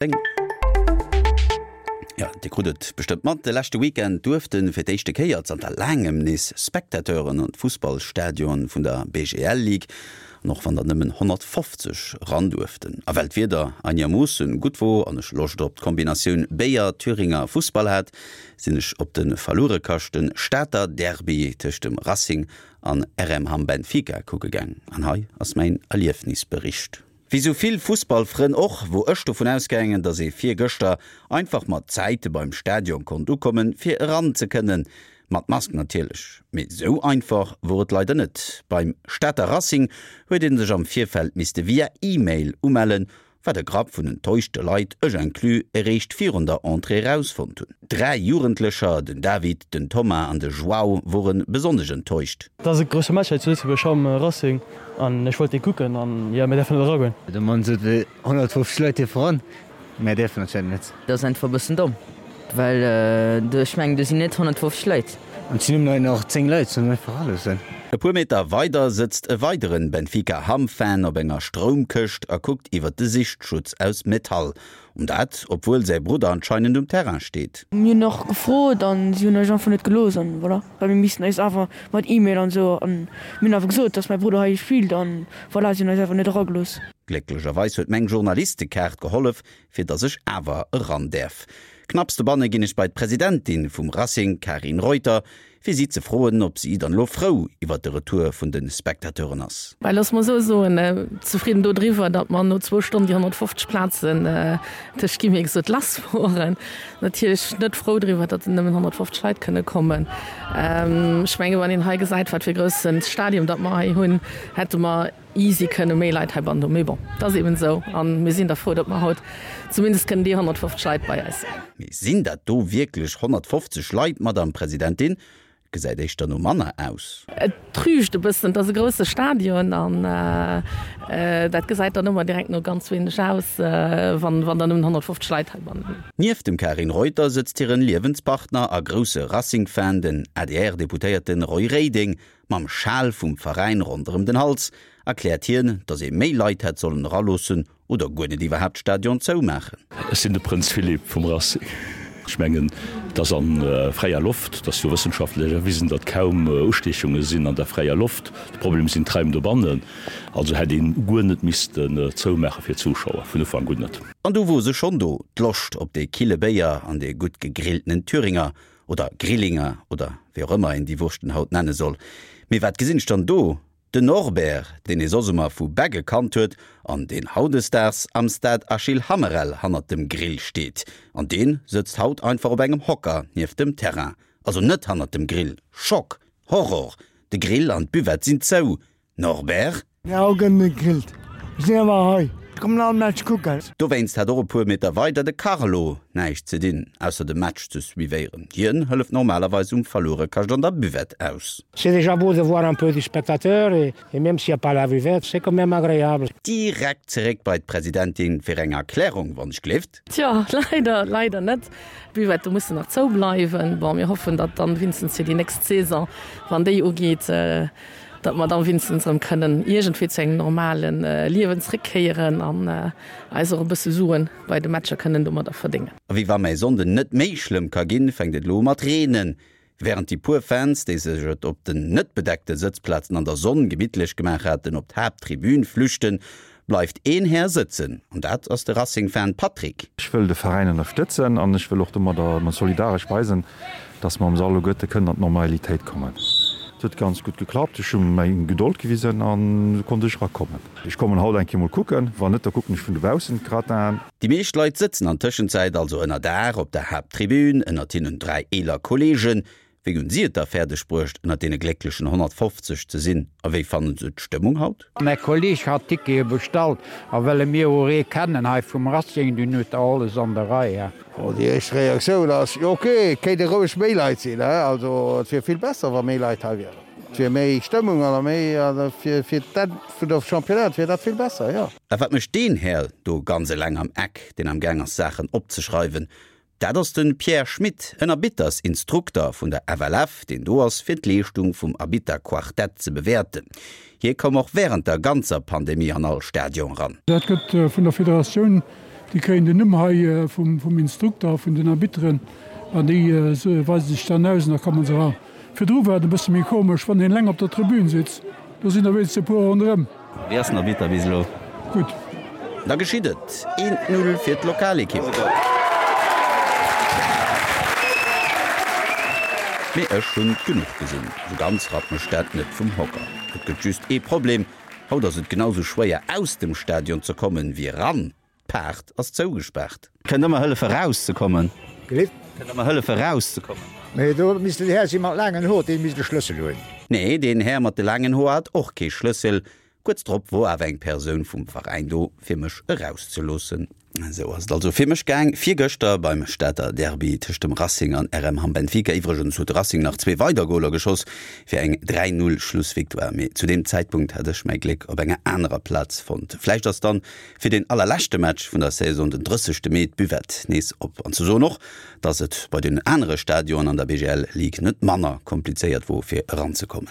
Jo, Dir krut et bestëmmt mat, de leschte Weekend duerfte fir d'éischte Kéier zanter laangem nees Spectateuren an d'Fussballstadion vun der BGL Ligue, an och wann der nëmmen 150 eran duerften. A well d'Wieder einermoossen gutt wor an ech Loscht op d'Kombinatioun Béier, Thüringer, Fussball hat, sinn ech op de verluerekaschten Stater Derby tëscht dem Racing an RM Hamm Benfica kucke gaang. An hei ass mäin Erliefnisbericht. Wéi sou vill Fussballfrënn och, wor ech dovun ausgaangen, dass ee virgëschter einfach mat Zäite beim Stadion konnt ukommen, fir eran ze kënnen. Mat Mask natierlech. Mee sou einfach wor et leider net. Beim Stater Racing huet ee sech am Virfeld misste via E-Mail umellen, wat e Grapp vun enttäuschte Leit, ech inclus, eréischt virun der Entrée erausfonnt hunn. 3 Jugendlecher, den David, den Thomas an de João, wore besonnesch enttäuscht. Et ass e grousse Match hei zu Lëtzebuerg, Hamm, Racing, an ech wollt dee kucken an jo, mir däerfen net eragoen. De Mann sot, 150 Leit dierfe ran, mär däerfen anscheinend net. Dat ass einfach e bëssen domm, well do, ech mengen, do sinn net 150 Leit. An et sinn nëmmen nach 10 Leit, sollen einfach eraloossen. E puer Meter weider sëtzt e weideren Benfica Hamm-Fan op enger Stroumkëscht a kuckt iwwert de Sichtschutz aus Metall. An dat, obwuel säi Brudder anscheinend um Terrain steet. Mir hunn och gefrot an si hunn eis einfach net gelooss an voilà, well mir missten eis awer mat E-Mail an esou an mir hunn awer gesot, dass mäi Brudder hei spillt an voilà, si hunn eis awer net eragelooss. Glécklecherweis huet meng Journalistekaart gehollef, fir dass ech awer eran däerf. Knapps dobanne ginn ech bei d'Presidentin vum Racing, Karin Reuter, fir si ze froen, ob si dann elo frou iwwert de Retour vun de Spectateuren ass. Well looss mer esou soen, zefridden dodriwwer, datt mer no zwou Stonnen déi 150 Plazen tëscht gi mir gesot lass woren. Natierlech net frou driwwer, datt nëmmen 150 Leit kënne kommen. Ech menge wann een hei gesäit, wat fir e grousse Stadium datt mer hei hunn, hätte mer easy kënne méi Leit heibannen hunn. Mee bon, et ass eben esou a mir sinn da frou, datt mer haut zumindest kënnen déi 150 Leit bei eis hunn. Mee sinn dat do wierklech 150 Leit, Madamm Presidentin? Et gesäit éischter no manner aus. Et trügt e bëssen. Et ass e grousse Stadion an dat gesäit dann ëmmer direkt no ganz wéineg aus, wann der nëmmen 150 Leit heibannen hunn. Nieft dem Karin Reuter sëtzt hiren Liewenspartner a grousse Racing-Fan, den ADR-Deputéierten Roy Reding, Mam Schal vum Veräin ronderëm den Hals erkläert hien, datt ee méi Leit hätt sollen eraloossen oder guer net iwwerhaapt d'Stadion zoumaachen. Ech sinn de Prënz Philippe vum Racing. Ech mengen, et ass a fräier Loft. Et ass jo wëssenschaftlech erwisen, datt kaum Ustiechunge sinn an der fräier Loft. De Problem sinn d'Raim dobannen. Also hätt een guer net missten zoumaache fir d'Zuschauer, vun Ufank un net. An du wor se schonn do, d'Loscht op dee kille Béier an dee gutt gegrilltenen Thüringer. Oder Grillinger, oder wéi och ëmmer een déi Wurschten haut nenne soll. Mee wat gesinn ech dann do? Den Norbert, deen ee soss ëmmer vu Begge kannt huet an deen hautdesdaags am Stade Achille Hammerel hannert dem Grill steet. An deen sëtzt haut einfach op engem Hocker nieft dem Terrain. Also net hannert dem Grill. Schock! Horror! De Grill an d'Buvette sinn zou. Norbert? Jo, gëtt net gegrillt. Ech sinn awer hei. Ech kommen all Match kucken. Dowéinst hat och e puer Meter weider de Carlo näischt ze dinn, ausser de Match ze suivéieren. Hien hëlleft normalerweis um Verluerekascht an der Buvette aus. C'est déjà beau de voir un peu de spectateurs et même s'il y a pas la buvette, c'est quand même agréable. Direkt zeréck bei d'Presidentin fir eng Erklärung, wann ech gleeft. Tjo, leider, leider net. D'Buvette mussen nach zou bleiwen. Bon, mir hoffen, datt dann wéinstens fir déi nächst Saison, wann déi ugeet, datt mer dann wéinstens erëm kënnen iergendwéi zu engem normale Liewen zréckkéieren an eis och e bësse Suen bei de Matcher kënnen domadder verdéngen. A wéi wa mäi Sonnden net méi schlëmm ka ginn, fänkt et elo u mat reenen. Wärend déi puer Fans, déi sech et op den net bedeckte Sëtzplazen an der Sonn gemittlech gemaach haten, op d'Haapttribün flüchten, bleift een Här sëtzen, an dat ass de Racing-Fan Patrick. Ech wëll de Veräin ënnerstëtzen an ech wëll och domadder solidaresch weisen, dass mer am Sall alleguerte kënnen an d'Normalitéit kommen. Et huet ganz gutt geklappt, ech hu meng Gedold gewisen an esou konnt ech erakommen. Ech kommen haut eng Kéier mol kucken, wann net, da kucken ech vun dobaussen d'Gratin. Déi meescht Leit sëtzen an Tëschenzäit also ënner Daach op der Haapttribün, ënnert hinnen 3 eeler Kolleegen. Wéi hunn si et da fäerdeg bruecht, ënnert deene glécklechen 150 ze sinn a wéi fannen se d'Stëmmung haut? Mäi Kolleg hat Tickete bestallt a well e mir och ee kennen hei vum Racing, dunn huet der alles an der Rei. Bon, déi éischt Reaktioun ass, jo ok, et kéinte roueg méi Leit sinn, he, also et wier vill besser, wa méi Leit hei wieren. Et wier méi Stëmmung an méi, a fir fir d'Enn vun der Championnat wier dat vill besser, jo. A wat mécht deen Här do ganz eleng am Eck, deen am gaang ass Saachen opzeschreiwen? Dat ass de Pierre Schmit, en Arbittersinstrukter vun der FLF, deen do ass fir d'Leeschtung vum Arbitterquartett ze bewäerten. Hie koum och wärend der ganzer Pandemie an all Stadion eran. Dat gëtt vun der Federatioun. Déi kréien den Numm hei vum Instrukter, vun den Arbitteren an déi weise sech dann aus an da komme se eran. Virdru war et e bësse méi komesch, wann een eleng op der Tribün sitzt, do sinn der wéinstens e puer ronderëm. Wéi ass den Arbitter bis elo? Gutt. Da geschitt et, Eent Null fir d'Lokalekipp. Mee ech hunn genuch gesinn, sou ganz rappt mech dat net vum Hocker. Et gëtt just ee Problem, Haut ass et genau sou schwéier aus dem Stadion ze kommen wéi eran. D'Paart ass zougespaart. Kënnt der mer hëllefe rauszekommen? Gelift? Kënnt der mer hëllefe rauszekommen? Mee do misst en Här si mat laangen Hoer, dee misst e Schlëssel hunn. Nee, deen Här mat de laangen Hoer hat och kee Schlëssel. Kuerz drop wor awer eng Persoun vum Veräin do, fir mech erauszeloossen. Esou ass et also fir mech gaang virgëschter beim Stater Derby tëscht dem Racing an RM Hamm Benfica. Iwwregens huet de Racing nach zwee weider Goler geschoss fir eng 3, 0 Schlussvictoire, mee zu deem Zäitpunkt hat ech mäi Gléck op enger anerer Plaz fonnt. Vläicht ass dann fir deen allerleschte Match vun der Saison den 30 Mee d'Buvette nees op. An ze soen och, dass et bei den anere Stadionen an der BGL Ligue net manner komplizéiert wor fir eranzekommen.